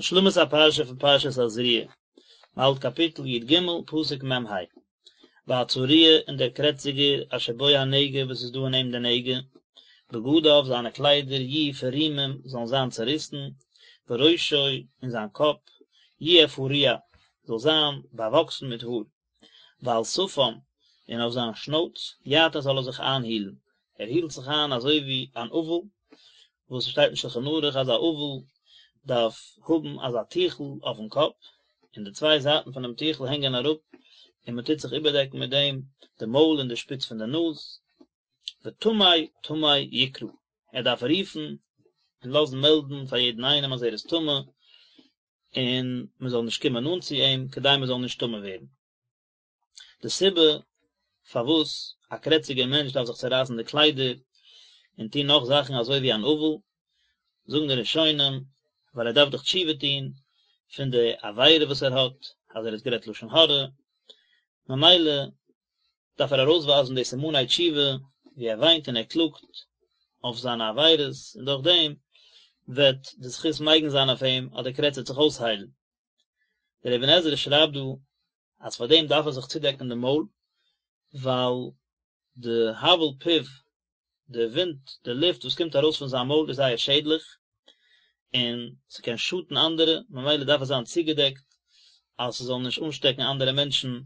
השלמת הפרשה פון פרשת תזריע, מען האלט קאפיטל י ג, פסוק מ ה, והצרוע און דער קרעציגער אשר בו הנגע וואס איז דא אין אים די נגע, בגדיו זיינע קליידער יהיו פרומים זאלן זיין צעריסן, וראשו און זיין קאפ, יהיה פרוע זאל זיין באוואקסן מיט האר. ועל שפם, און אויף זיין שנויץ, יעטה זאל ער זיך איינהילן, ער הילט זיך איין אזוי ווי אן אבל, וואס ס'שטייט אין שלחן ערוך אז א אבל דארף האבן אזא טיכל אויפן קאפ, און די צוויי זייטן פונעם טיכל הענגען אראפ, און מען טוט זיך איבערדעקן מיט דעם די מויל און די שפיץ פון די נאז, וטמא טמא יקרא, ער דארף רופן און לאזן מעלדן פאר יעדן איינעם אז ער איז טמא, און מען זאל נישט קומען נאנט צו אים כדי מען זאל נישט טמא ווערן. די סיבה פארוואס א קרעציגער מענטש דארף זיך צערייסן די קליידער און טון נאך זאכן אזוי ווי אן אבל, זאגן די ראשונים, ווייל ער דארף דאך תשובה טון פון די עבירה וואס ער האט, אז ער האט גערעדט לשון הרע, ממילא דארף ער ארויסווייזן די סימני תשובה ווי ער וויינט און ער קלאגט אויף זיינע עבירות, און דורך דעם וועט די זכות מגין זיין אויף אים אז די קרעץ וועט זיך אויסהיילן. דער אבן עזרא שרייבט דא אז פאר דעם דארף ער זיך צודעקן די מויל, ווייל די הבל פיו, די ווינט, די לופט וואס קומט ארויס פון זיין מויל איז זייער שעדליך, און ס'קען שאטן אנדערע, ממילא דארף ער זיין צוגעדעקט אז ס'זאל נישט אנשטעקן אנדערע מענטשן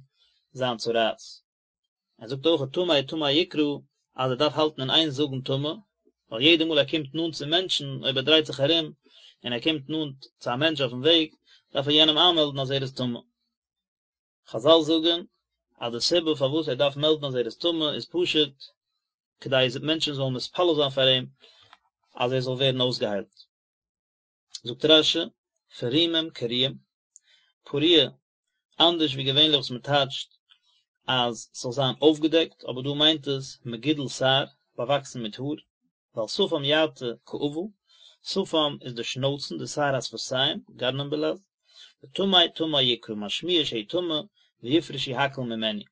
זיין צרעת. ער זאגט אויך טמא טמא יקרא אז ער דארף האלטן אין איין זאגן טמא, ווייל יעדע מאל ער קומט נאנט צו מענטשן, אויב ער דרייט זיך ארום און ער קומט נאנט צו א מענטש אויפן וועג, דארף ער יענעם איינמעלדן אז ער איז טמא. חזל זאגן אז די סיבה פארוואס ער דארף מעלדן אז ער איז טמא איז פשוט כדי מענטשן זאלן מתפלל זיין פאר אים אז ער זאל ווערן אויסגעהיילט. זאגט רש"י, פרומים קרועים, פרוע, אנדערש ווי געווענליך וואס מען טייטשט אז ס'זאל זיין אויפגעדעקט, אבער דא מיינט עס מגודל שער, באוואקסן מיט האר, ועל שפם יעטה כאבל, שפם איז די שנויצן, די שער השפתיים, גרנם בלע"ז, וטמא טמא יקרא, משמיע שהוא טמא, ויפרשו הכל ממנו.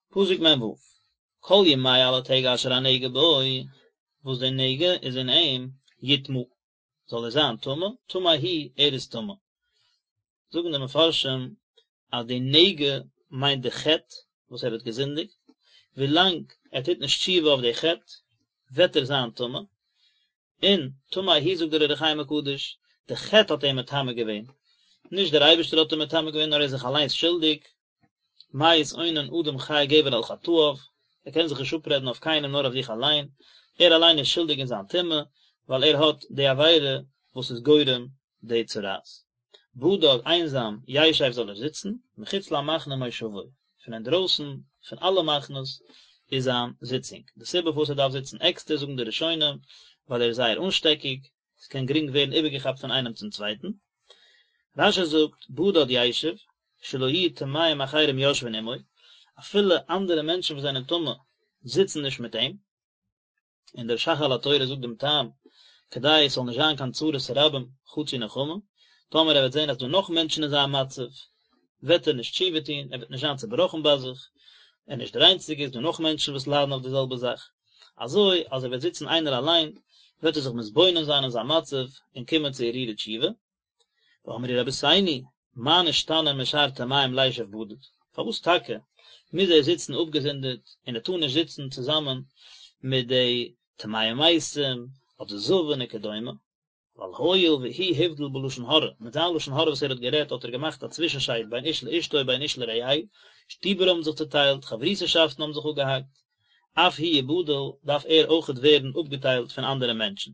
פסוק מ"ו, כל ימי אלע טעג אשר הנגע בו, וואס די נגע איז אין אים, יטמא, זאל ער זיין טמא, טמא הוא, ער איז טמא. זאגן די מפרשים אז די נגע מיינט די חטא וואס ער האט געזינדיגט, ווילאנג ער טוט נישט תשובה אויף די חטא וועט ער זיין טמא, און טמא הוא זאגט דער אור החיים הקדוש, די חטא האט אים מטמא געווען, נישט דער אייבערשטער האט אים מטמא געווען נאר ער איז זיך אליינס שולדיג, מה יתאונן אדם חי גבר על חטאיו, ער קען זיך נישט אפרעדן אויף קיינעם נאר אויף זיך אליין, ער אליין איז שולדיג אין זיין טומאה, ווייל ער האט די עבירה וואס איז גורם די צרעת. בדד, איינזאם, ישב זאל ער זיצן, מחוץ למחנה מושבו, פון אינדרויסן פון אלע מחנות איז זיין זיצונג. די סיבה פארוואס ער דארף זיצן עקסטער זאגן די ראשונים, ווייל ער איז זייער אנשטעקיג, עס קען גרינג ווערן איבערגעכאפט פון איינעם צום צווייטן. רש"י זאגט, בדד ישב, שלא יהיו טמאים אחרים יושבין עמו, אפילו אנדערע מענטשן וואס זענען טמא זיצן נישט מיט אים, און דער ש"ך על התורה זאגט דעם טעם, כדי עס זאל נישט זיין קיין צרת רבים חצי נחמה, טאמער ער וועט זען אז דא נאך מענטשן אין זיין מצב, וועט ער נישט תשובה טון, ער וועט נישט זיין צעבראכן ביי זיך, ער איז נישט דער איינציגער, עס איז דא נאך מענטשן וואס ליידן אויף די זעלבע זאך, אזוי אז ער וועט זיצן איינער אליין, וועט ער זיך מתבונן זיין אין זיין מצב און קומען צו הרהורי תשובה. ואמרו רבותינו, מה נשתנה משאר טמאים לישב בדד? פארוואס טאקע מוז ער זיצן אפגעזונדערט און ער טאר נישט זיצן צוזאמען מיט די טמאי מתים אדער זבין וכדומה? ווייל הואיל והוא הבדיל בלשון הרע, מיט זיין לשון הרע וואס ער האט גערעדט האט ער געמאכט א צווישנשייד בין איש לאשתו ובין איש לרעהו, שטיבער האבן זיך צוטיילט, חברותא'שאפטן האבן זיך אפגעהאקט, אף הוא יבדל, דארף ער אויכעט ווערן אפגעטיילט פון אנדערע מענטשן.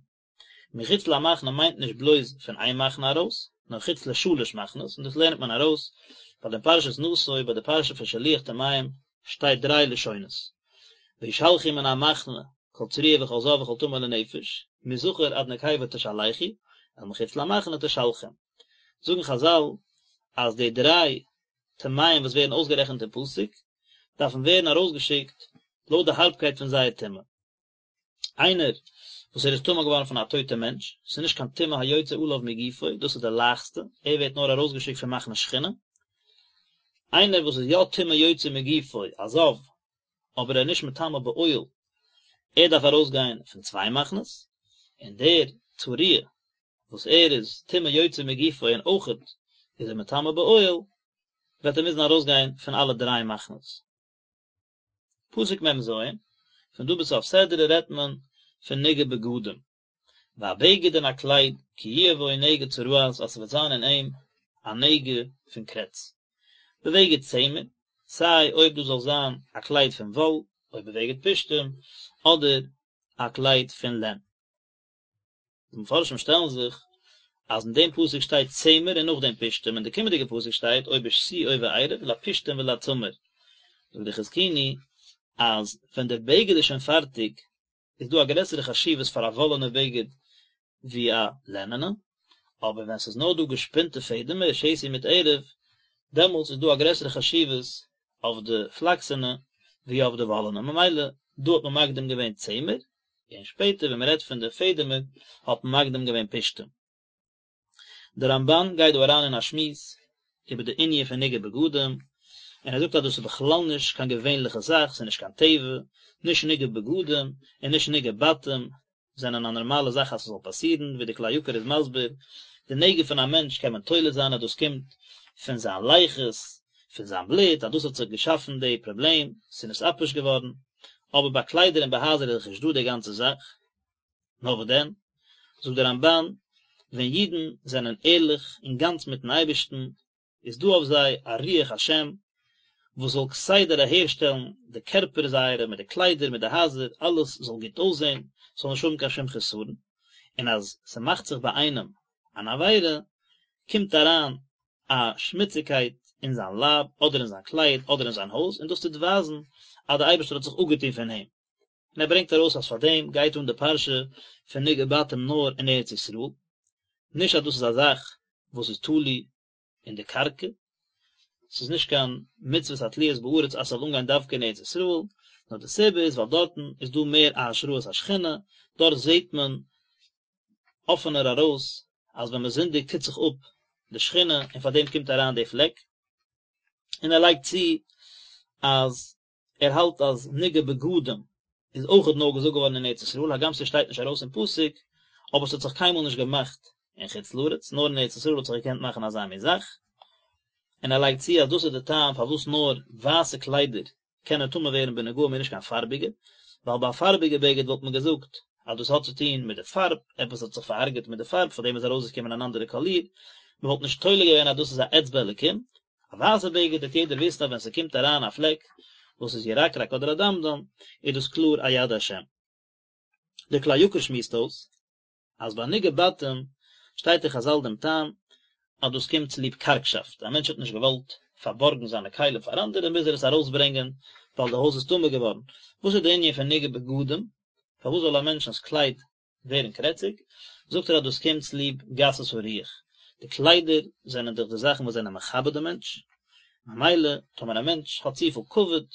מחוץ למחנה מיינט נישט בלויז פון איין מחנה ארויס, נאר חוץ לשלש מחנות, און דאס לערנט מען ארויס, ווייל אין פרשת נשא ביי די פרשה פון שילוח טמאים שטייט דריי לשונות, וישלחו מן המחנה כל צרוע וכל זב וכל טמא לנפש, מזכר עד נקבה תשלחו, אל מחוץ למחנה תשלחום. זאגן חזל אז די דריי טמאים וואס ווערן אויסגערעכנט אין פסוק, דארפן ווערן ארויסגעשיקט לויט די הארבקייט פון זייער טומאה. איינער וואס ער איז טמא געווארן פון א טויטע מענטש, ס'איז נישט קיין טומאה היוצא עליו מגופו, דאס איז די לייכסטע, ער ווערט נאר ארויסגעשיקט פון מחנה שכינה. איינער וואס איז יא טומאה יוצא מגופו, א זב, אבער ער איז נישט מטמא באוהל, ער דארף ארויסגיין פון צוויי מחנות, און דער צרוע. וואס ער איז טומאה יוצאה מגופו און אויכעט איז ער מטמא באוהל, וועט ער מוזן ארויסגיין פון אלע דריי מחנות. פסוק מ ז, פון דא ביז סוף סדרה רעדט מען פון נגעי בגדים, והבגד און א קלייד, כי יהיה בו נגע צרעת אז ס'וועט זיין אין אים א נגע פון קרעץ. בבגד צמר, סיי אויב דאס זאל זיין א קלייד פון וואל, או בבגד פשתים, אדער א קלייד פון לען. די מפרשים שטעלן זיך אז אין דעם פסוק שטייט צמר און נאכדעם פשתים, אין די קומענדיגע פסוק שטייט או בשתי או בערב לפשתים ולצמר. זאגט די חזקוני אז ווען דער בגד איז שוין פארטיג איז דא א גרעסערע חשיבות פאר א וואלענע בגד ווי א לענענע, אבער ווען ס'איז נאר דא געשפינטע פעדעמער, שתי מיט ערב, דעמאלטס איז דא א גרעסערע חשיבות אויף די פלאקסענע ווי אויף די וואלענע, ממילא דא האט מען מקדים געווען צמר, און שפעטער ווען מ'רעדט פון די פעדעמער האט מען מקדים געווען פשתים. דער רמבן גייט דא אריין אין א שמועס איבער די ענין פון נגעי בגדים, און ער זאגט אז דאס איז בכלל נישט קיין געווענליכע זאך, ס'איז נישט קיין טבע, נישט נגעי בגדים און נישט נגעי בתים זענען א נארמאלע זאך אז ס'זאל פאסירן, ווי די כלי יקר איז מסביר, די נגע פון א מענטש קען מען תולה זיין אז דאס קומט פון זיין לחות, פון זיין בלוט, אז דאס האט זיך געשאפן די פראבלעם, ס'איז נתעפש געווארן, אבער ביי קליידער און ביי הייזער איז דאך נישט דא די גאנצע זאך. נאר וואס דען, זאגט דער רמבן, ווען אידן זענען ערליך און גאנץ מיטן אייבערשטן, איז דא אויף זיי א רוח השם, וואס זאל כסדר אהערשטעלן די קערפער זייערע מיט די קליידער מיט די הייזער, אלעס זאל גוט אויסזען, ס'זאל נישט האבן קיין שום חסרון, און אז ס'מאכט זיך ביי איינעם אן עבירה, קומט אריין א שמוציגקייט אין זיין לייב, אדער אין זיין קלייד, אדער אין זיין הויז, און דאס טוט ווייזן אז דער אייבערשטער האט זיך אפגעטון פון אים. און ער ברענגט ארויס אז פאר דעם גייט אן די פרשה פון נגעי בתים נאר אין ארץ ישראל, נישט אז דאס איז א זאך וואס איז תלוי אין די קרקע, ס'איז נישט קיין מצוות התלויות בארץ אז ס'זאל אנגיין דווקא אין ארץ ישראל, נאר די סיבה איז ווייל דארטן איז דא מער א השראת השכינה, דארט זעט מען אפענער ארויס אז ווען מען זינדיגט טוט זיך אפ די שכינה און פאר דעם קומט אריין די פלעק, און ער לייגט צו אז ער האלט אז נגעי בגדים איז אויכעט נאר געזאגט געווארן אין ארץ ישראל, הגם ס'שטייט נישט ארויס אין פסוק, אבער ס'האט זיך קיינמאל נישט געמאכט אין חוץ לארץ, נאר אין ארץ ישראל האט זיך געקענט מאכן אזא מין זאך, און ער לייגט צו אז דאס איז די טעם פארוואס נאר ווייסע קליידער קענען טמא ווערן בנגעים און נישט קיין פארביגע, ווייל ביי א פארביגע בגד וואלט מען געזאגט אז דאס האט צו טון מיט די פארב, עפעס האט זיך פארהרג'עט מיט די פארב פארדעם איז ארויסגעקומען אן אנדערע קאליר, מען וואלט נישט תולה געווען אז דאס איז א אצבע אלקים, א ווייסע בגד וועט יעדער וויסן אז ווען ס'קומט אריין א פלעק וואס איז ירקרק אדער אדמדם איז דאס קלאר א יד השם. דער כלי יקר שמועסט אויס אז ביי נגעי בתים שטייט אין חזל דעם טעם אז דאס קומט צוליב קארגשאפט, א מענטש האט נישט געוואלט פארבארגן זיינע כלים פאר אנדערע מוז ער עס ארויסברענגען ווייל די הויז איז טמא געווארן. וואס איז די ענין פון נגעי בגדים? פארוואס זאל א מענטשנ'ס קלייד ווערן קרעציג, זאגט ער אז דאס קומט צוליב גסות הרוח, די קליידער זענען דאך די זאכן וואס זענען מכבד דעם מענטש, ממילא טאמער א מענטש האט צופיל כבוד,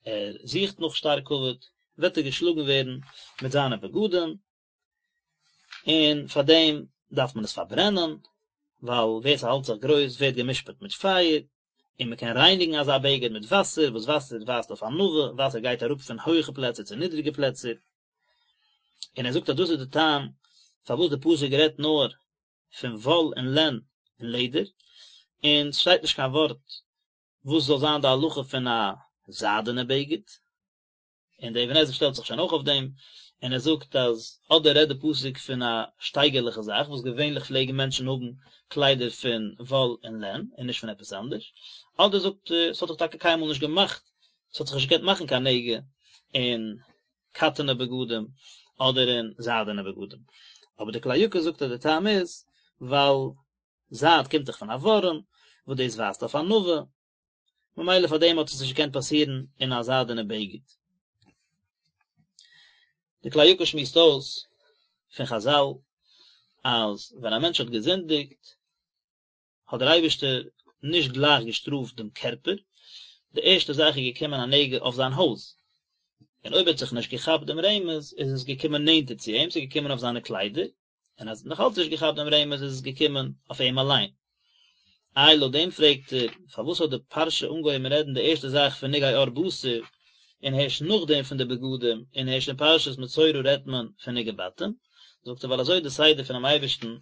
ער זוכט נאך שטארק כבוד, וועט ער געשלאגן ווערן מיט זיינע בגדים, און פאר דעם דארף מען עס פארברענען, ווייל ווער ס'האלט זיך גרויס ווערט גע'משפט מיט פייער, און מען קען רייניגן אזא בגד מיט וואסער, וואס וואסער ווייזט אויף ענווה, וואסער גייט אראפ פון הויכע פלעצער צו נידריגע פלעצער. און ער זאגט אז דאס איז די טעם פארוואס די פסוק רעדט נאר פון וואל און לען און לעדער, און ס'שטייט נישט קיין ווארט וואס זאל זיין די הלכה פון א זיידענע בגד, און דער אבן עזרא שטעלט זיך שוין אויך אויף דעם, און ער זאגט אז אדער רעדט די פסוק פון א שטייגערליכע זאך וואס געווענליך פלעגן מענטשן האבן קליידער פון וואל און לען און נישט פון עפעס אנדערש, אדער זאגט ער ס'האט זיך טאקע קיינמאל נישט געמאכט, ס'האט זיך נישט געקענט מאכן קיין נגע אין קאטענע בגדים אדער אין זיידענע בגדים, אבער די כלי יקר זאגט אז די טעם איז ווייל זייד קומט דאך פון א ווארעם וואס דאס ווייזט אויף ענווה, ממילא פאר דעם האט עס נישט געקענט פאסירן אין א זיידענע בגד. די כלי יקר שמועסט אויס פון חזל אז ווען א מענטש האט געזינדיגט האט דער אייבערשטער נישט גלייך געשטראפט דעם קערפער, די ערשטע זאך איז געקומען א נגע אויף זיין הויז, און אויב ער האט זיך נישט געכאפט דעם רמז איז עס געקומען נענטער צו אים, ס'איז געקומען אויף זיינע קליידער, און אז ער האט נאך אלץ נישט געכאפט דעם רמז איז עס געקומען אויף אים אליין. איי לויט דעם פרעגט ער, פארוואס האט די פרשה אנגעהויבן רעדן די ערשטע זאך פון נגעי עור בשר, און הערשט נאכדעם פון די בגדים, און הערשט אין פרשת מצורע רעדט מען פון נגעי בתים? זאגט ער ווייל אזוי איז די סדר פונעם אייבערשטן.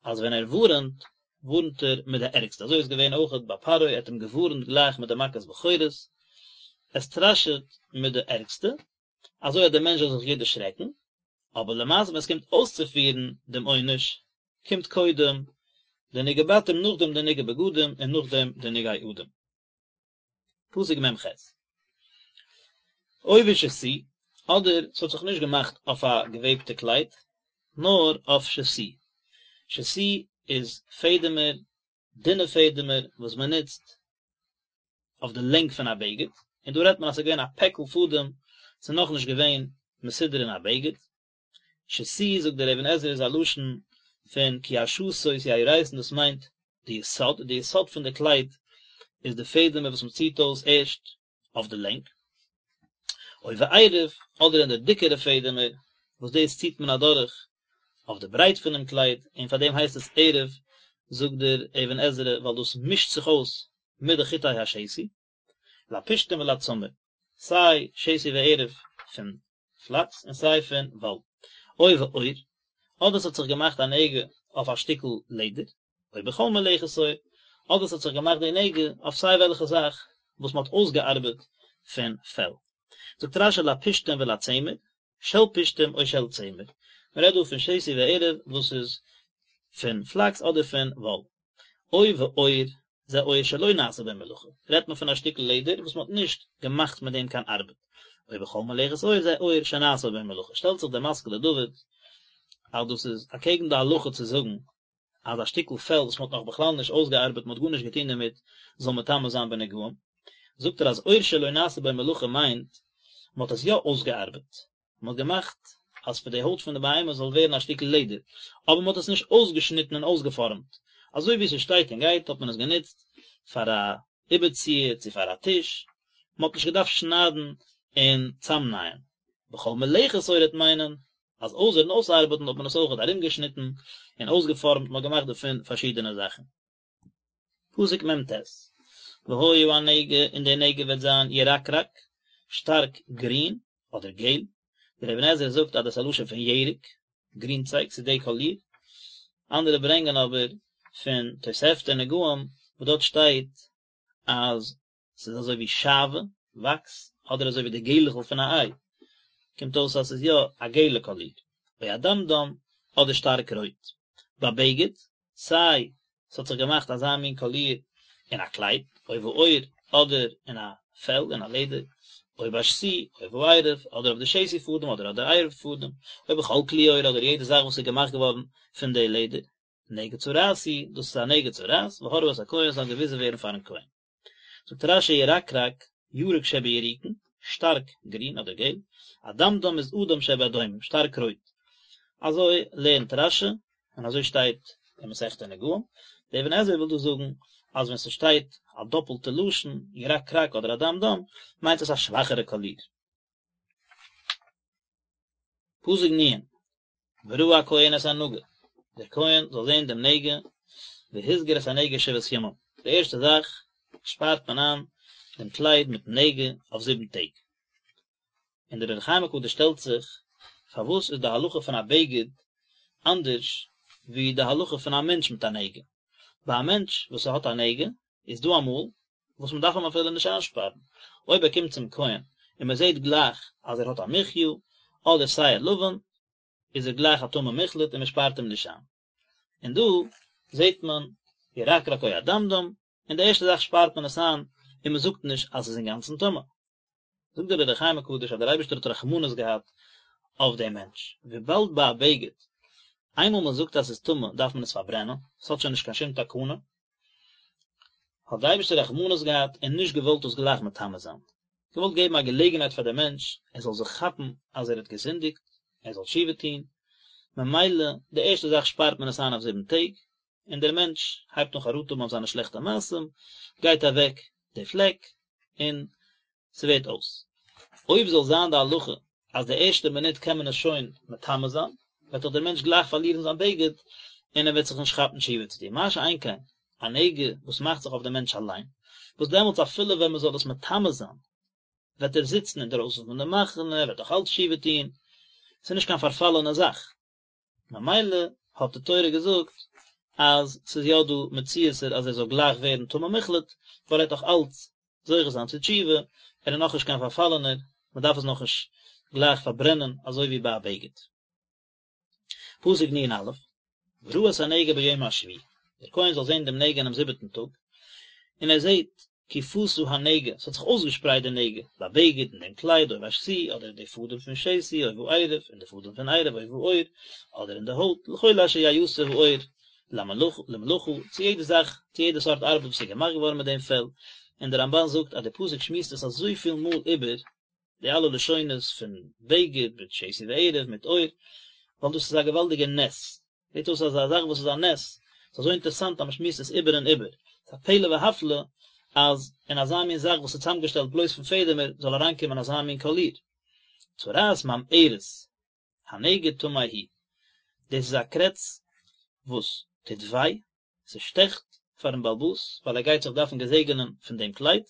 אז ווען ער ווארענט, ווארענט ער מיט די ערגסטע, אזוי איז געווען אויכעט ביי פרעה, ער האט אים געווארענט גלייך מיט די מכת בכורות, ער סטראשעט מיט די ערגסטע, אזוי אז דער מענטש זאל זיך גוט דערשרעקן, אבער למעשה ווען עס קומט אויסצופירן דעם עונש, קומט קודם די נגעי בתים נאכדעם די נגעי בגדים און נאכדעם די נגעי אדם. פסוק מ ח. או בשתי, אדער ס'האט זיך נישט געמאכט אויף א געוועבטע קלייד, נאר אויף שתי. שתי איז פעדעמער, דינע פעדעמער וואס מען נוצט אויף די לענג פון א בגד, און דא רעדט מען אז ס'איז געווען א פעקל פאדעם, ס'איז נאכנישט געווען מסודר אין א בגד. שתי זאגט דער אבן עזרא איז א לשון פון כי השתות יהרסון דאס מיינט די יסוד, די יסוד פון די קלייד איז די פעדעמער וואס מען ציט אויס ערשט אויף די לענג, או בערב אדער אין די דיקערע פעדעמער וואס דאס ציט מען אדורך אויף די ברייט פונעם קלייד און פאר דעם הייסט עס ערב זאגט דער אבן עזרא ווייל דאס מישט זיך אויס מיט די חוטי השתי. לפשתים ולצמר, סיי שתי וערב פון פלאקס און סיי פון וואל. או בעור, אדער ס'האט זיך געמאכט א נגע אויף א שטיקל לעדער, או בכל מלאכת עור, אדער ס'האט זיך געמאכט די נגע אויף סיי וועלכע זאך וואס מ'האט אויסגעארבעט פון פעל. זאגט רשי לפשתים ולצמר, של פשתים או של צמר, מ'רעדט דא פון שתי וערב וואס איז פון פלאקס אדער פון וואל. או בעור, זה עור שלא נעשה בו מלאכה, רעדט מען פון א שטיקל לעדער וואס מען האט נישט געמאכט מיט דעם קיין ארבעט, או בכל מלאכת עור זה עור שנעשה בו מלאכה, שטעלט זיך דער משכיל לדוד אז דאס איז אקעגן די הלכה צו זאגן אז א שטיקל פעל וואס מען האט נאך בכלל נישט אויסגעארבעט, מען האט גארנישט געטון דערמיט, זאל מטמא זיין בנגעים, זאגט ער אז עור שלא נעשה בו מלאכה מיינט מען האט עס יא אויסגעארבעט, מען האט געמאכט אז פון די הויט פון די בהמה זאל ווערן א שטיקל לעדער, אבער מען האט עס נישט אויסגעשניטן און אויסגעפארעמט, אזוי ווי ס'שטייט און גייט האט מען עס גענוצט פאר א איבערציער צו פאר א טיש, מען האט נישט געדארפט שניידן און צאמנייען. בכל מלאכת עור וועט מיינען אז אויסערן אויסארבעטן האט מען עס אויכעט ארומגעשניטן און אויסגעפארעמט, מען האט געמאכט דערפון פארשידענע זאכן. פסוק מ ט, והיה הנגע און די נגע וועט זיין ירקרק, שטארק גרין אדער געל, דער אבן עזרא זאגט אז דאס איז א לשון פון ירק, גרינצייג, ס'איז די קאליר, אנדערע ברענגען אבער פון תוספתא נגעים וואס דארט שטייט אז ס'איז אזוי ווי שעוה, וואקס, אדער אזוי ווי די געלעכל פון א איי, קומט אויס אז ס'איז יא א געלע קאליר, או אדמדם, אדער שטארק רויט. בבגד, סיי ס'האט זיך געמאכט אזא מין קאליר אין א קלייד, או בעור, אדער אין א פעל, אין א לעדער, או בשתי, או בערב, אדער אויף די שתי פאדעם, אדער אויף די ערב פאדעם, או בכל כלי עור, אדער יעדע זאך וואס איז געמאכט געווארן פון די לעדער. נגע צרעת הוא, דאס איז א נגע צרעת, והראו את הכהן זאל געוויזן ווערן פארן כהן. זאגט רשי ירקרק, ירוק שבירוקין, שטארק גרין אדער געל, אדמדם איז אדום שבאדומים, שטארק רויט. אזוי לערנט רשי, און אזוי שטייט אין מסכת נגעים. דער אבן עזרא וויל דא זאגן אז ווען ס'שטייט א דאפלטע לשון, ירקרק אדער אדמדם, מיינט עס א שוואכערע קאליר. פסוק נ', וראה הכהן את הנגע, דער כהן זאל זען דעם נגע, והסגיר את הנגע שבעת ימים, די ערשטע זאך שפארט מען איין דעם קלייד מיטן נגע אויף זיבן טעג. און דער אור החיים הקדוש שטעלט זיך, פארוואס איז די הלכה פון א בגד אנדערש ווי די הלכה פון א מענטש מיט א נגע? ביי א מענטש וואס ער האט א נגע, איז דא אמאל וואס מען דארף אים אפילו נישט איינשפארן, אויב ער קומט צום כהן און מען זעט גלייך אז ער האט א מחיה אדער שער לבן, איז ער גלייך א טמא מוחלט און מען שפארט אים נישט איין. און דא זעט מען ירקרק או אדמדם, און די ערשטע זאך שפארט מען עס איין און מען זאגט נישט אז עס איז אינגאנצן טמא. זאגט דער אור החיים הקדוש אז דער אייבערשטער האט רחמנות געהאט אויף דעם מענטש, וויבאלד ביי א בגד איינמאל מען זאגט אז עס איז טמא דארף מען עס פארברענען, עס האט שוין נישט קיין שום תקנה, האט דער אייבערשטער רחמנות געהאט און נישט געוואלט דאס גלייך מטמא זיין, געוואלט געבן א געלעגנהייט פאר דעם מענטש ער זאל זיך כאפן אז ער האט געזינדיגט, ער זאל תשובה טון, ממילא די ערשטע זאך שפארט מען עס איין אויף זיבן טעג, און דער מענטש הייבט אן חרטה האבן אויף זיינע שלעכטע מעשים, גייט אוועק די פלעק, און ס'ווערט אויס. אויב זאל זיין די הלכה אז די ערשטע מינוט קען מען עס שוין מטמא זיין, וועט דאך דער מענטש גלייך פארלירן זיין בגד, און ער וועט זיך נישט כאפן תשובה צו טון, מה שאין כן א נגע וואס מאכט זיך אויף דעם מענטש אליין, וואס דעמאלטס אפילו ווען מען זאל עס מטמא זיין, וועט ער זיצן אינדערויסן פון די מחנה, ער וועט נאך אלץ תשובה טון, ס'איז נישט קיין פארפאלענע זאך. ממילא האט די תורה געזאגט. אז ס'איז יא דא מציאות'ער אז ער זאל גלייך ווערן טמא מוחלט, ווייל ער וועט נאך אלץ זוכה זיין צו תשובה, ער איז נאכנישט קיין פארפאלענער, מ'דארף עס נאכנישט גלייך פארברענען אזוי ווי ביי א בגד. פסוק נ"א, וראה את הנגע ביום השביעי, דער כהן זאל זען דעם נגע אינעם זיבעטן טאג, און ער זעט כי פשה הנגע, ס'האט זיך אויסגעשפרייט די נגע, בבגד אין דעם קלייד, או בשתי, אדער אין די פאדעם פון שתי, או בערב, אין די פאדעם פון ערב, או בעור, אדער אין די הויט, לכל אשר יעשה העור למלאכה, צו יעדע זאך, צו יעדע סארט ארבעט וואס איז געמאכט געווארן מיט דעם פעל, און דער רמב"ן זאגט אז דער פסוק שמועסט עס אזויפיל מאל איבער, די אלע לשונות פון בגד מיט שתי וערב מיט עור, ווייל דאס איז א געוואלדיגע נס, זעט אויס אז א זאך וואס איז א נס, איז אזוי אינטערעסאנט אז מען שמועסט עס איבער און איבער, ס'איז א פלא והפלא אז אין אזא מין זאך וואס איז צוזאמגעשטעלט בלויז פון פעדעמער זאל אריינקומען אזא מין קאליר. צרעת ממארת, הנגע טמא הוא, דאס איז א קרעץ וואס טוט וויי, ס'שטעכט פארן בעל הבית ווייל ער גייט זיך דארפן געזעגענען פון דעם קלייד,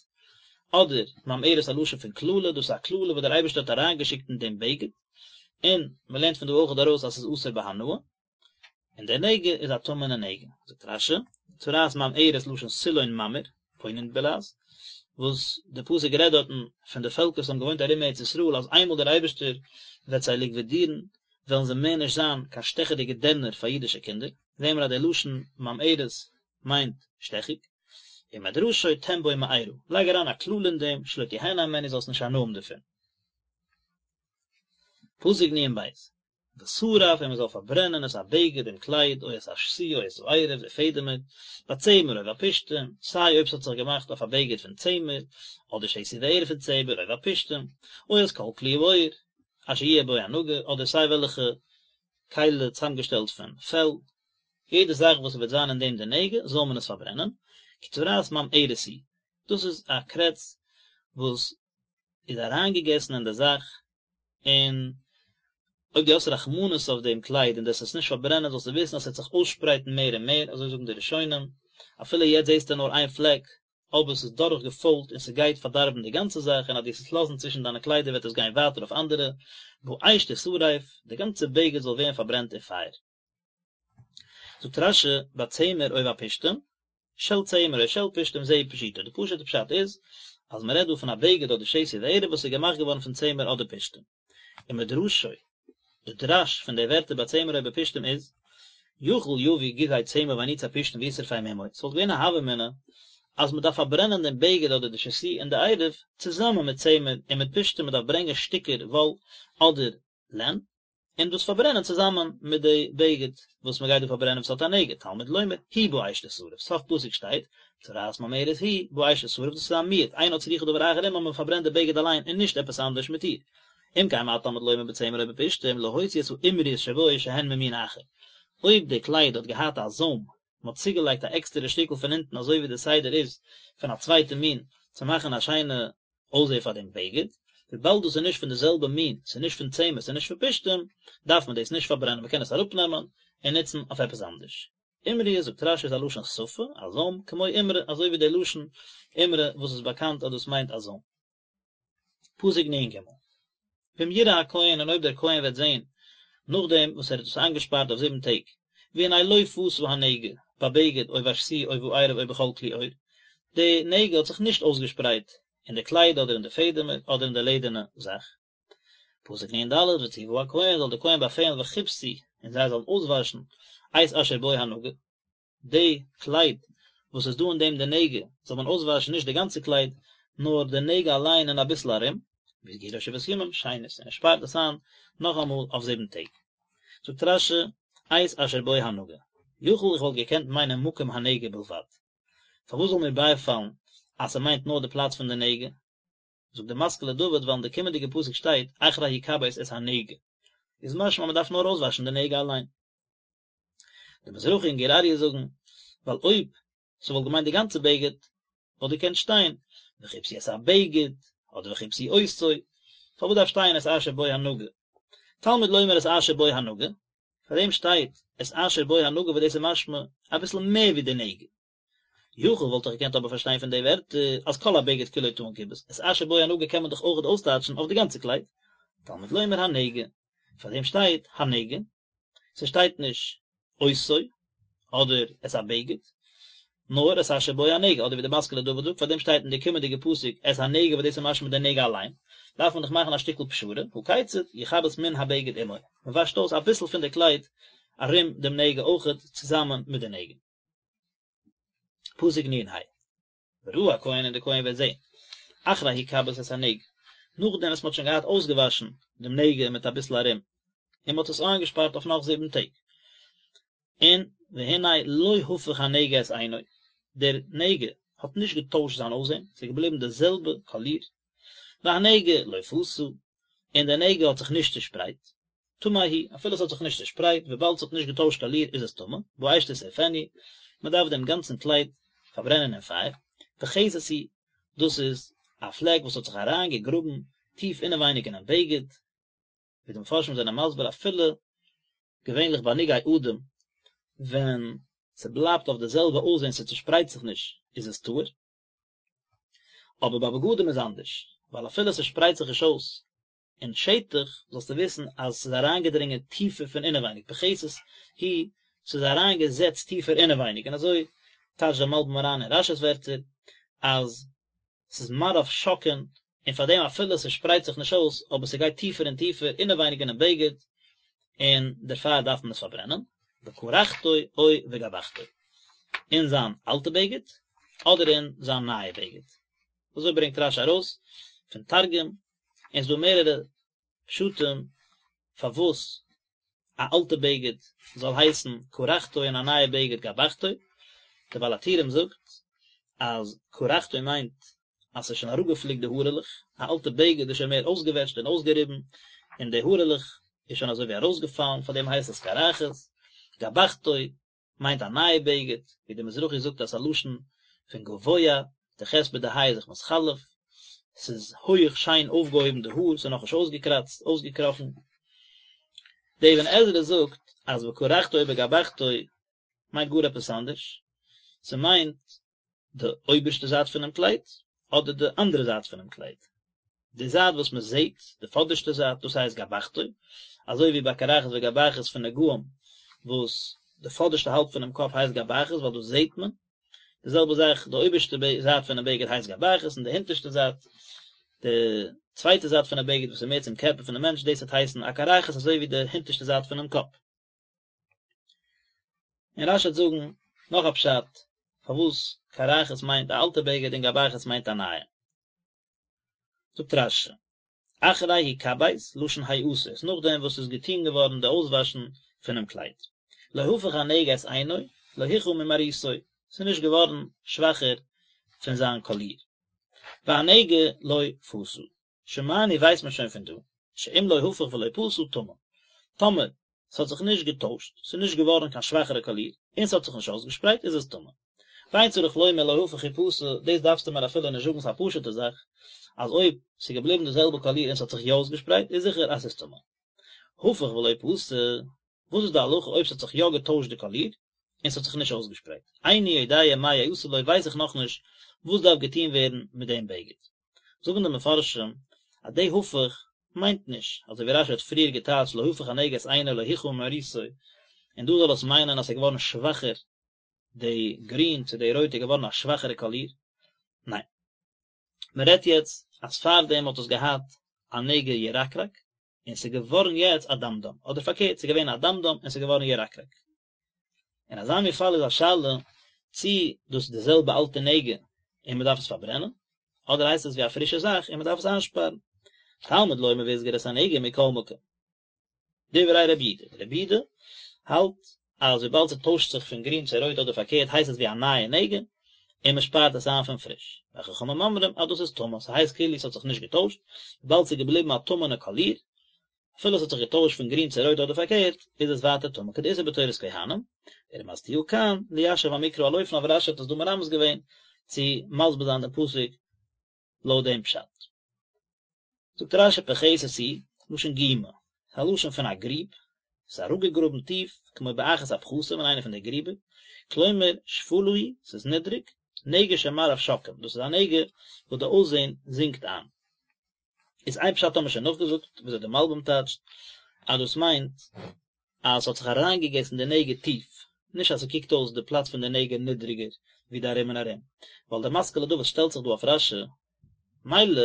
אדער ממארת א לשון פון קללה, דאס איז א קללה וואס דער אייבערשטער האט אריינגעשיקט אין דעם בגד, און מען לערנט פון דא אויך ארויס אז ס'איז אסור בהנאה, און דער נגע איז א טמא'נע נגע. זאגט רש"י, צרעת ממארת לשון סילון ממאיר, פוינן בלע"ז, וואס דער פסוק רעדט דארטן פון די פעלקער וואס האבן געוואוינט ארום ארץ ישראל אז איינמאל דער אייבערשטער וועט זיי ליקווידירן וועלן זיי מער נישט זיין קיין שטעכעדיגע דערנער פאר אידישע קינדער. זעהן מיר אז דער לשון ממארת מיינט שטעכיג, ומדרשו תן בו מארה, לייג אריין א קללה אין דעם, שלא תהנה הימנו זאלסט נישט הנאה האבן דערפון. פסוק נ"ב, ושרף און מען זאל פארברענען את הבגד דעם קלייד או את השתי או את הערב די פעדעמער, בצמר או בפשתים, סיי אויב ס'האט זיך געמאכט אויף א בגד פון צמר, אדער שתי וערב פון צמר או בפשתים, או את כל כלי העור, אשר יהיה בו הנגע, אדער סיי וועלכע כלי צוזאמגעשטעלט פון פעל, יעדע זאך וואס ס'וועט זיין אין דעם די נגע זאל מען עס פארברענען, כי צרעת ממארת היא, דאס איז א קרעץ וואס איז אריינגעגעסן אין די זאך, און אויב דו האסט רחמנות אויף דעם קלייד און דו וועסט עס נישט פארברענען זאלסטו וויסן אז ס'וועט זיך אויסשפרייטן מער און מער, אזוי זאגן די ראשונים, אפילו יעצט זעסטו נאר איין פלעק, אבער ס'איז דורך געפוילט און ס'גייט פארדארבן די גאנצע זאך און אז דו וועסט עס לאזן צווישן דיינע קליידער וועט עס גיין ווייטער אויף אנדערע, באש תשרף, די גאנצע בגד זאל ווערן פארברענט אין פייער. זאגט רש"י, בצמר או בפשתים, של צמר או של פשתים זהו פשוטו, די פשוט'ע פשט איז אז מ'רעדט דא פון א בגד אדער שתי וערב וואס איז געמאכט געווארן פון צמר אדער פשתים. ומדרשו, די דרש פון די ווערטער בצמר או בפשתים איז, יכול יביא גיזי צמר ואניצי פשתים וישרפם עמו, ס'וואלט געווען א הוה אמינא אז מ'דארף פארברענען דעם בגד אדער די שתי און די ערב צוזאמען מיט צמר און מיט פשתים, מ'דארף ברענגען שטיקער וואל אדער לען, און דאס פארברענען צוזאמען מיט די בגד וואס מ'גייט דא פארברענען וואס האט א נגע, תלמוד לומר היא באש תשרף, סוף פסוק שטייט, צרעת ממארת היא באש תשרף, דאס איז א מיעוט, אינה צריכה דבר אחר עמה, מ'פארברענט די בגד אליין און נישט עפעס אנדערש מיט איר. אם כן מה תלמוד לומר בצמר או בפשתים להוציא את האימריות שבו שהן ממין אחר. אויב די קלייד האט געהאט א זוים, מען האט צוגעלייגט א עקסטערע שטיקל פון אונטן אזוי ווי די סדר איז פון א צווייטע מין צו מאכן א שיינע אויסזעה פאר דעם בגד, וויבאלד דאס איז נישט פון די זעלבע מין, ס'איז נישט פון צמר ס'איז נישט פון פשתים, דארף מען דאס נישט פארברענען מען קען עס אראפנעמען און נוצן אויף עפעס אנדערש. אימריות זאגט רש"י איז א לשון שפה, א זוים, כמו אימרא, אזוי ווי דער לשון אימרא וואס איז באקאנט אז דאס מיינט א זוים. פסוק נ"ג, ואם יראה הכהן און אויב דער כהן וועט זען, נאכדעם וואס ער האט עס איינגעשפארט אויף זיבן טעג, והנה לא פשה הנגע, בבגד או בשתי או בערב או בכל כלי עור, די נגע האט זיך נישט אויסגעשפרייט אין די קלייד אדער אין די פעדעמער אדער אין די לעדערנע זאך. פסוק נ"ד, וצוה הכהן זאל דער כהן באפעלן וכבסו און זיי זאלן אויסוואשן את אשר בו הנגע, די קלייד וואס איז דא אין דעם די נגע זאל מען אויסוואשן נישט די גאנצע קלייד נאר די נגע אליין און אביסל ארום, והסגירו שבעת ימים שנית און ער שפארט עס איין נאכאמאל אויף זיבן טעג. זאגט רש"י, את אשר בו הנגע, יכול איך וואלט געקענט מיינען מקום הנגע בלבד, פארוואס זאל מיר בייפאלן אז ס'מיינט נאר די פלאץ פון די נגע? זאגט די משכיל לדוד ווייל אין די קומענדיגע פסוק שטייט אחרי יכבס את הנגע, איז משמע אז מ'דארף נאר אויסוואשן די נגע אליין. די מזרחי און גור אריה זאגן, ווייל אויב ס'וואלט געמיינט די גאנצע בגד, וואלט געקענט שטיין, וכבסו את הבגד, אדער וכבסו אותו, פארוואס דארף שטיין את אשר בו הנגע? תלמוד לומר את אשר בו הנגע, פאר דעם שטייט את אשר בו הנגע וואס דאס איז משמע אביסל מער ווי די נגע. יכול וואלט איך געקענט אבער פארשטיין פון די ווערטער אז כל הבגד כולו טעון כיבוס, את אשר בו הנגע קען מען דאך אויכעט אויסטייטשן אויף די גאנצע קלייד, תלמוד לומר הנגע, פאר דעם שטייט הנגע, ס'שטייט נישט אותו. אדער את הבגד, נאר את אשר בו הנגע, אדער ווי די משכיל לדוד זאגט, פארדעם שטייט אין די קומענדיגע פסוק את הנגע וואס דאס איז משמע די נגע אליין, דארף מען דאך מאכן א שטיקל פשרה, הא כיצד, יכבס מן הבגד עמו, מען וואשט אויס אביסל פון די קלייד ארום דעם נגע אויכעט צוזאמען מיט די נגע. פסוק נ ה. וראה הכהן און דער כהן וועט זען, אחרי הכבס את הנגע, נאכדעם וואס מען האט שוין געהאט אויסגעוואשן דעם נגע מיט אביסל ארום, און מען האט עס איינגעשפארט אויף נאך זיבן טעג, און והנה לא הפך הנגע את עינו, דער נגע האט נישט געטוישט זיין אויסזען, ס'איז געבליבן די זעלבע קאליר, והנגע לא פשה, און דער נגע האט זיך נישט צעשפרייט, טמא הוא, אפילו עס האט זיך נישט צעשפרייט, וויבאלד עס האט נישט געטוישט קאליר איז עס טמא, באש תשרפנו, מען דארף דעם גאנצן קלייד פארברענען אין פייער, פחתת היא, דאס איז א פלעק וואס האט זיך אריין געגראבן טיף אינעווייניג אינעם בגד, ווי די מפרשים זענען מסביר אפילו געווענליך ביי נגעי אדום ווען ס'בלייבט אויף די זעלבע אויסזען ס'צושפרייט זיך נישט איז עס טהור, אבער ביי בגדים איז אנדערש, ווייל אפילו ס'שפרייט זיך נישט אויס אין שטח, זאלסטו וויסן אז ס'איז אריינגעדרינגען טיפער פון אינעווייניג, פחתת היא, ס'איז אריינגעזעצט טיפער אינעווייניג, און אזוי טייטשט דער מלבים אריין אין רשי'ס ווערטער, אז ס'איז מראיו שוקעין, און פאר דעם אפילו ס'שפרייט זיך נישט אויס, אבער ס'גייט טיפער און טיפער אינעווייניג אינעם בגד, און דערפאר דארף מען עס פארברענען, בקרחתו או בגבחתו, אין זיין אלטע בגד, אדער אין זיין נייע בגד. אזוי ברענגט רשי ארויס פון תרגום, און ס'דא מערערע פשטים פארוואס א אלטע בגד זאל הייסן קרחתו און א נייע בגד גבחתו, דער בעל הטורים זאגט אז קרחתו מיינט אז ס'איז שוין אראפגעפליקט די הארעלעך, א אלטע בגד איז שוין מער אויסגעוועטשט און אויסגעריבן, און די הארעלעך איז שוין אזוי ווי ארויסגעפאלן, פארדעם הייסט עס קרחת, גבחתו מיינט א נייע בגד, ווי דער מזרחי זאגט אז ס'איז א לשון פון גבוה, די ח' מיט די ה' איז זיך מתחלף, ס'איז הויעך שיין אויפגעהויבן די האר, ס'איז נאכנישט אויסגעקראצט, אויסגעקראכן. דער אבן עזרא זאגט אז בקרחתו ובגבחתו מיינט גאר עפעס אנדערש, ס'מיינט די אויבערשטע זייט פונעם קלייד, אדער די אנדערע זייט פונעם קלייד. די זייט וואס מען זעט, די פאדערשטע זייט, דאס הייסט גבחתו, אזוי ווי ביי קרחת וגבחת פון נגעים, וואס די פאדערשטע האלב פונעם קאפ הייסט גבחת ווייל דאס זעט מען, די זעלבע זאך די אויבערשטע זייט פונעם בגד הייסט גבחת און די הונטערשטע זייט, די צווייטע זייט פונעם בגד וואס איז מער צום קערפער פונעם מענטש, דאס וועט הייסן א קרחת אזוי ווי די הונטערשטע זייט פונעם קאפ. און רשי וועט זאגן נאך א פשט פארוואס קרחת מיינט א אלטע בגד און גבחת מיינט א נייע. זאגט רשי, אחרי הכבס, לשון העשות, נאכדעם וואס ס'איז געטון געווארן די אויסוואשן פונעם קלייד. לא הפך הנגע את עינו, לא הוכהה ממראיתו, ס'איז נישט געווארן שוואכער פון זיין קאליר. והנגע לא פשה. שמענו ווייסט מען שוין פון דא, שאם לא הפך ולא פשה טמא. טאמער ס'האט זיך נישט געטוישט, ס'איז נישט געווארן קיין שוואכערע קאליר, און ס'האט זיך נישט אויסגעשפרייט, איז עס טמא. ואין צריך לומר לא הפך ופשה, דאס דארפסטו מיר אפילו נישט זאגן, ס'איז א פשוט'ע זאך, אז אויב ס'איז געבליבן די זעלבע קאליר און ס'האט זיך יא אויסגעשפרייט, איז זיכער אז ס'איז טמא. הפך ולא פשה, וואס איז די הלכה אויב ס'האט זיך יא געטוישט די קאליר, און ס'האט זיך נישט אויסגעשפרייט? איני יודע מה יעשה לו ווייס איך נאכנישט וואס דארף געטון ווערן מיט דעם בגד. זאגן די מפרשים אז די הפך מיינט נישט אזוי ווי רשי האט פריער געטייטשט לא הפך הנגע את עינו לא הוכהה ממראיתו, און דא זאל עס מיינען אז ס'איז געווארן שוואכער די גרין צו די רויט איז געווארן א שוואכערע קאליר, ניין. מען רעדט יעצט אז פארדעם האט עס געהאט א נגע ירקרק און ס'איז געווארן יעצט אדמדם, אדער פארקערט ס'איז געווען אדמדם און ס'איז געווארן ירקרק. אין אזא מין פאל איז א שאלה צי דאס איז די זעלבע אלטע נגע און מען דארף עס פארברענען, אדער הייסט עס ווי א פרישע זאך און מען דארף עס איינשפארן. תלמוד לומר והסגיר את הנגע מכל מקום. דברי רבי יהודה, רבי יהודה האלט אז וויבאלד ס'טוישט זיך פון גרין צו רויט אדער פארקערט הייסט עס ווי א נייע נגע און מען שפארט עס איין פון פריש. וחכמים אומרים אז דאס איז טמא, ס'הייסט כאילו ס'האט זיך נישט געטוישט, וויבאלד ס'איז געבליבן א טמא'נע קאליר, אפילו עס האט זיך געטוישט פון גרין צו רויט אדער פארקערט, איז עס ווייטער טמא כדאיתא בתורת כהנים, ורמזתיה כאן, ליישב המקרא על אופניו רשי האט עס דא מרמז געווען צו מסביר זיין דעם פסוק לויט דעם פשט. זאגט רשי פחתת היא, לשון גומא, ס'איז א לשון פון א גריב, ס'איז אראפגעגראבן טיף, כמו באחת הפחתים אין איינע פון די גריבער, כלומר שפלה היא, ס'איז נידריג, נגע שמראיו שוקעים, דאס איז א נגע וואס די אויסזען זינקט איין. איז איין פשט האבן מיר שוין נאכגעזאגט וויאזוי די מלבים טייטשט אז דאס מיינט אז ס'האט זיך אריינגעגעסן די נגע טיף. נישט אז ס'קוקט אויס די פלאץ פון די נגע נידריגער ווי די ארום און ארום, ווייל דער משכיל לדוד שטעלט זיך דא אויף רש"י, מילא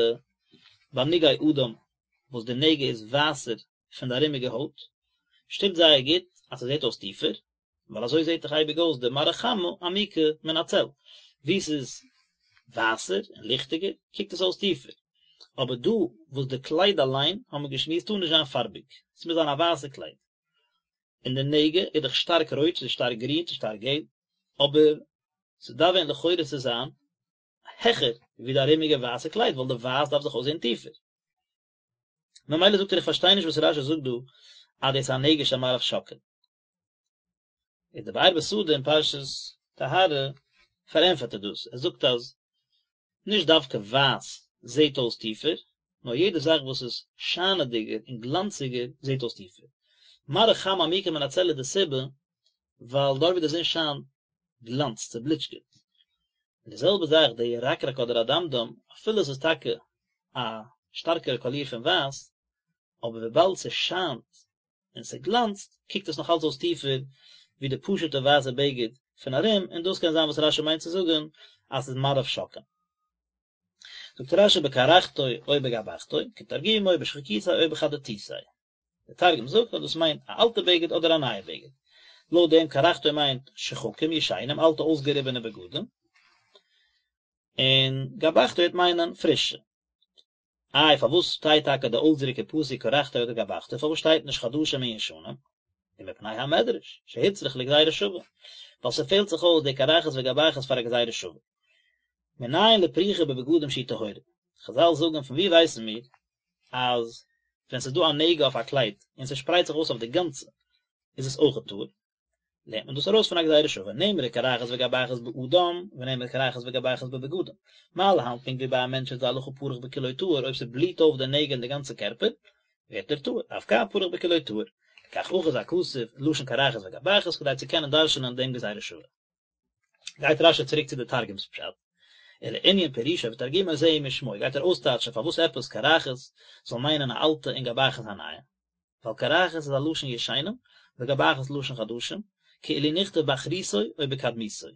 ביי נגעי אדם וואס די נגע איז ווייסער פון די ארומיגע הויט, שטימט זייער גוט אז ס'זעט אויס טיפער, ווייל אזוי זעט דאך אייביג אויס די מראה חמה עמיקה מן הצל, וואו ס'איז ווייסער און ליכטיגער קוקט עס אויס טיפער, אבער דא וואס די קלייד אליין האבן מיר געשמועסט טאר נישט זיין פארביג, ס'מוז זיין א ווייסע קלייד, און די נגע איז דאך שטארק רויט צו שטארק גרין צו שטארק געל, אבער ס'דארף ווען לכאורה צו זיין העכער ווי די ארומיגע ווייסע קלייד ווייל די ווייס דארף זיך אויסזען טיפער. ממילא זאגט ער איך פארשטיי נישט וואס רש"י זאגט דא אז דאס איז א נגע שמראיו שוקעין. איז די באר בשדה אין פרשת טהרה פארענטפערט ער דאס, ער זאגט אז נישט דווקא ווייס זעט אויס טיפער, נאר יעדע זאך וואס איז שיינעדיגער און גלאנציגער זעט אויס טיפער. מראה חמה עמוקה מן הצל איז די סיבה ווייל דארט ווי די זון שיינט גלאנצט, ס'בליטשקעט. און די זעלבע זאך די ירקרק אדער אדמדם, אפילו עס איז טאקע א שטארקערע קאליר פון ווייס, אבער וויבאלד ס'שיינט און ס'גלאנצט, קוקט עס נאך אלץ אויס טיפער ווי די פשוט'ע ווייסע בגד פון ארום, און דאס קען זיין וואס רש"י מיינט צו זאגן אז ס'איז מראיו שוקעין. זאגט רש"י בקרחתו או בגבחתו, כתרגומו בשחקיתיה או בחדתיתיה. דער תרגום זאגט אז דאס מיינט א אלטע בגד אדער א נייע בגד. לויט דעם קרחתו מיינט שחקים ישנים, אלטע אויסגעריבענע בגדים, און גבחתו וועט מיינען פרישע. איי פארוואס שטייט טאקע די אויסדרוק אין פסוק קרחתו אדער גבחתו, פארוואס שטייט נישט חדשים און ישנים? ומפני המדרש, שהוצרך לגזירה שווה, ווייל ס'פעלט זיך אויס די קרחת וגבחת פאר א גזירה שווה. מנין לפריחה בבגדים שהיא טהורה? חזל זאגן פון וואו ווייסן מיר אז ווען ס'איז דא א נגע אויף א קלייד און ס'שפרייט זיך אויס אויף די גאנצע איז עס אויכעט טהור? לערנט מען דאס ארויס פון א גזירה שווה, נאמרה קרחת וגבחת באדם, ונאמרה קרחת וגבחת בבגדים. מה להלן פונקט ווי ביי א מענטש איז די הלכה פרח בכולו טהור, אויב ס'בליט אויף די נגע אין די גאנצע קערפער, ווערט ער טהור, אף כאן פרח בכולו טהור. לכך אחז הכתוב לשון קרחת וגבחת כדי צו קענען דרש'נען דעם גזירה שווה. גייט רש"י צוריק צו די תרגום'ס פשט, ולענין פירושו ותרגומו זהו משמעו, גייט ער אויסטייטשן פארוואס עפעס קרחת זאל מיינען א אלטע און גבחת א נייע. ווייל קרחת איז א לשון ישנים, וגבחת לשון חדשים, כאילו נכתב באחריתו או בקדמותו.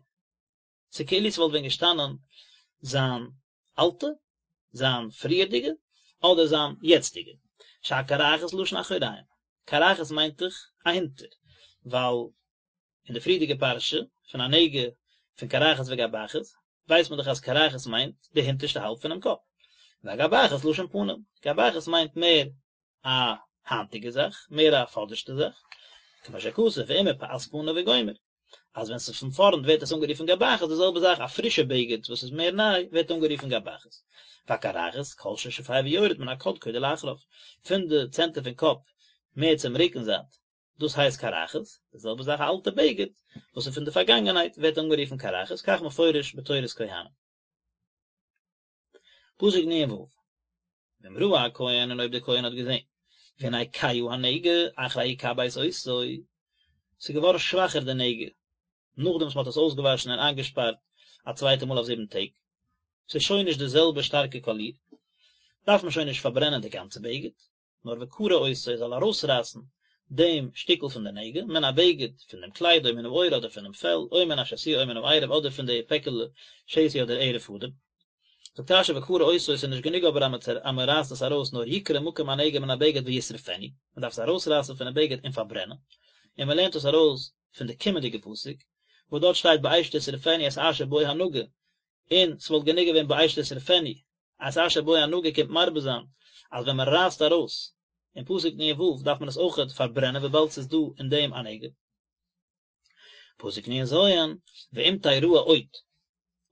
ס'איז כאילו ס'וואלט ווען געשטאנען זיין אלטע, זיין פריערדיגע, אדער זיין יעצטיגע. שהקרחת לשון אחוריים. קרחת מיינט דאך אהינטער, ווייל אין די פריערדיגע פרשה פון א נגע פון קרחת וגבחת, ווייסט מען דאך אז קרחת מיינט די הינטערשטע האלב פונעם קאפ. והגבחת לשון פנים. גבחת מיינט מער א היינטיגע זאך, מער א פאדערשטע זאך, כמו שכתוב ואם מפאת פניו וגומר, אז ווען ס'איז פון פארנט ווערט עס אנגערופן גבחת, די זעלבע זאך א פרישע בגד וואס איז מער ניי ווערט אנגערופן גבחת. והקרחת, כל ששופע ויורד מן הקדקוד ולאחריו, פון די צענטער פון קאפ מער צום רוקן זייט, דאס הייסט קרחת, די זעלבע זאך א אלטע בגד וואס איז פון די פארגאנגענהייט ווערט אנגערופן קרחת, כך מפורש בתורת כהנים. פסוק נ"ו, ואם ראה הכהן און אויב דער כהן האט געזען, והנה כהה הנגע אחרי הכבס אותו, ס'איז געווארן שוואכער די נגע, נאכדעם וואס מ'האט עס אויסגעוואשן און איינגעשפארט א צווייטע מאל אויף זיבן טעג, ס'איז שוין נישט די זעלבע שטארקע קאליר, דארף מען שוין נישט פארברענען די גאנצע בגד, נאר וקרע אותו ער זאל ארויסרייסן דעם שטיקל פון די נגע, מן הבגד, פון דעם קלייד, או מן העור אדער פונעם פעל, או מן השתי או מן הערב אדער פון די פעקעלע שתי אדער ערב פאדעם. זאגט רש"י וקרע אותו ס'איז נישט גענוג אבער אז מען רייסט עס ארויס נאר יקרע מקום הנגע מן הבגד וישרפנו, מען דארף עס ארויסרייסן פונעם בגד און פארברענען, און מען לערנט עס ארויס פון די קומענדיגע פסוק וואס דארט שטייט באש תשרפנו את אשר בו הנגע, און ס'וואלט גענוג געווען באש תשרפנו, את אשר בו הנגע קומט מרבה זיין אז ווען מען רייסט ארויס אין פסוק נ"ו דארף מען עס אויכעט פארברענען וויבאלד ס'איז דא אין דעם א נגע. פסוק נ"ז, ואם תראה עוד,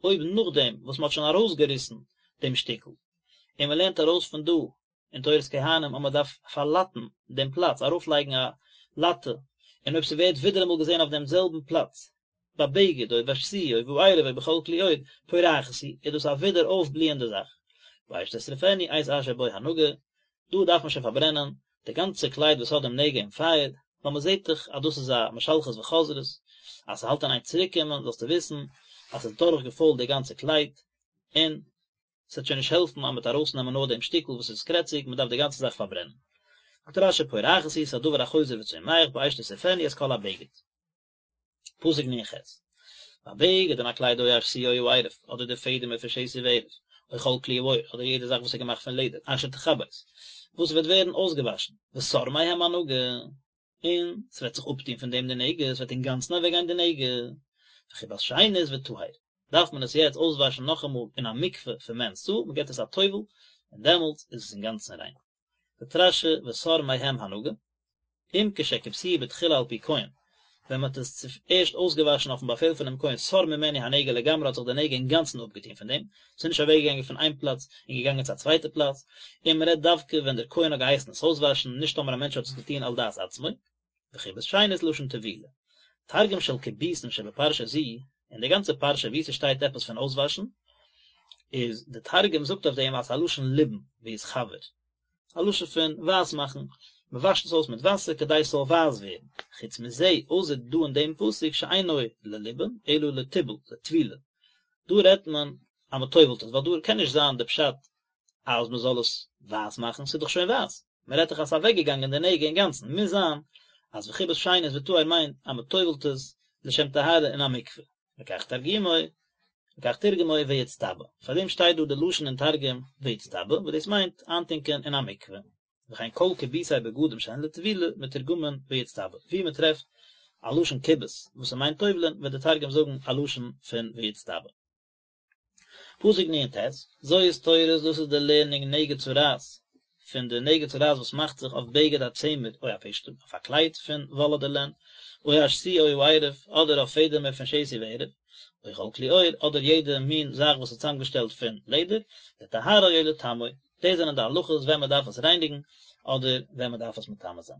אויב נאכדעם וואס מען האט שוין ארויסגעריסן דעם שטיקל, און מען לערנט ארויס פון דא אין תורת כהנים אז מען דארף פארלאטן דעם פלאץ, ארויפלייגן א לאטע, און אויב ס'ווערט ווידעראמאל געזען אויף דעם זעלבן פלאץ, בבגד או בשתי או בערב או בכל כלי עור, פורחת היא, איז דאס א ווידער אויפבליענדע זאך. באש תשרפנו את אשר בו הנגע, דא דארף מען שוין פארברענען די גאנצע קלייד וואס האט דעם נגע אין פייער, ווייל מען זעט דאך אז דאס איז א משלכת וחוזרת, אז ס'האלט אין איין צוריקקומען, זאלסטו וויסן אז ס'איז דורך געפוילט די גאנצע קלייד, און ס'וועט שוין נישט העלפן אז מ'וועט ארויסנעמען נאר דעם שטיקל וואס איז קרעציג, מ'דארף די גאנצע זאך פארברענען. זאגט רש"י פורחת היא, ס'איז א דבר החוזר וצומח, באש תשרפנו את כל הבגד. פסוק נ"ח, והבגד און א קלייד או השתי או הערב, אדער די פעדעמער פון שתי וערב, או כל כלי העור, אדער יעדע זאך וואס איז געמאכט פון לעדער, אשר תכבס, וואס וועט ווערן אויסגעוואשן, וסר מהם הנגע, און ס'וועט זיך אפטון פון דעם די נגע, ס'וועט אינגאנצן אוועקגיין די נגע, וכבס שנית וטהר, דארף מען עס יעצט אויסוואשן נאכאמאל אין א מקווה פון מ' סאה, מ'געבט עס א טובל, און דעמאלטס איז עס אינגאנצן ריין. זאגט רש"י וסר מהם הנגע, אם כשכבסוהו בתחילה על פי כהן, ווען מען האט עס צוערשט אויסגעוואשן אויפן באפעל פונעם כהן סר ממנו הנגע לגמרי האט זיך די נגע אינגאנצן אפגעטון פון דעם, ס'איז נישט אוועקגעגאנגען פון איין פלאץ און געגאנגען צו א צווייטע פלאץ, און מען רעדט דווקא ווען דער כהן האט געהייסן עס אויסוואשן, נישט טאמער א מענטש האט עס געטון על דעת עצמו. וכיבוס שנית לשון טבילה. תרגום של כיבוסין שבפרשה זו, אין די גאנצע פרשה וואו ס'שטייט עפעס פון אויסוואשן, איז די תרגום זאגט אויף דעם אז ס'איז א לשון ליבון, ויתחוור. א לשון פון ווייס מאכן, מ'וואשט עס אויס מיט וואסער כדי ס'זאל ווייס ווערן. חוץ מזה, אויסער דא אין דעם פסוק שאינו לליבון, אלא לטיבול, לטבילה. דא רעדט מען אז מ'טובל'ט עס, ווייל דא קען נישט זיין די פשט אז מ'זאל עס ווייס מאכן, ס'איז דאך שוין ווייס. מען רעדט דאך אז ס'איז אוועקגעגאנגען די נגע אינגאנצן, מוז זיין אז וכיבס שנית וטהר מיינט אז מען טובל'ט עס לשם טהרה אין א מקווה, לכך תרגומו, לכך תרגמו ויצטבא, פאר דעם שטייט דא די לשון אין תרגום ויצטבא, וואס דאס מיינט איינטונקען אין א מקווה, וכן כל כיבוסי בגדים שהן לטבילה מתורגמין ויצטבא, ווי מען טרעפט א לשון כיבוס וואס ס'מיינט טובל'ען וועט די תרגום זאגן א לשון פון ויצטבא. פסוק נ"ט, זאת תורת דאס איז די לערנונג נגע צרעת, פון די נגע צרעת וואס מאכט זיך אויף בגד הצמר או הפשתים, אויף א קלייד פון וואל אדער לען, או השתי או הערב, אדער אויף פעדעמער פון שתי וערב, או כל כלי עור, אדער יעדע מין זאך וואס איז צוזאמגעשטעלט פון לעדער, לטהרו או לטמאו, דאס זענען די הלכות ווען מען דארף עס רייניגן, אדער ווען מען דארף עס מטמא זיין.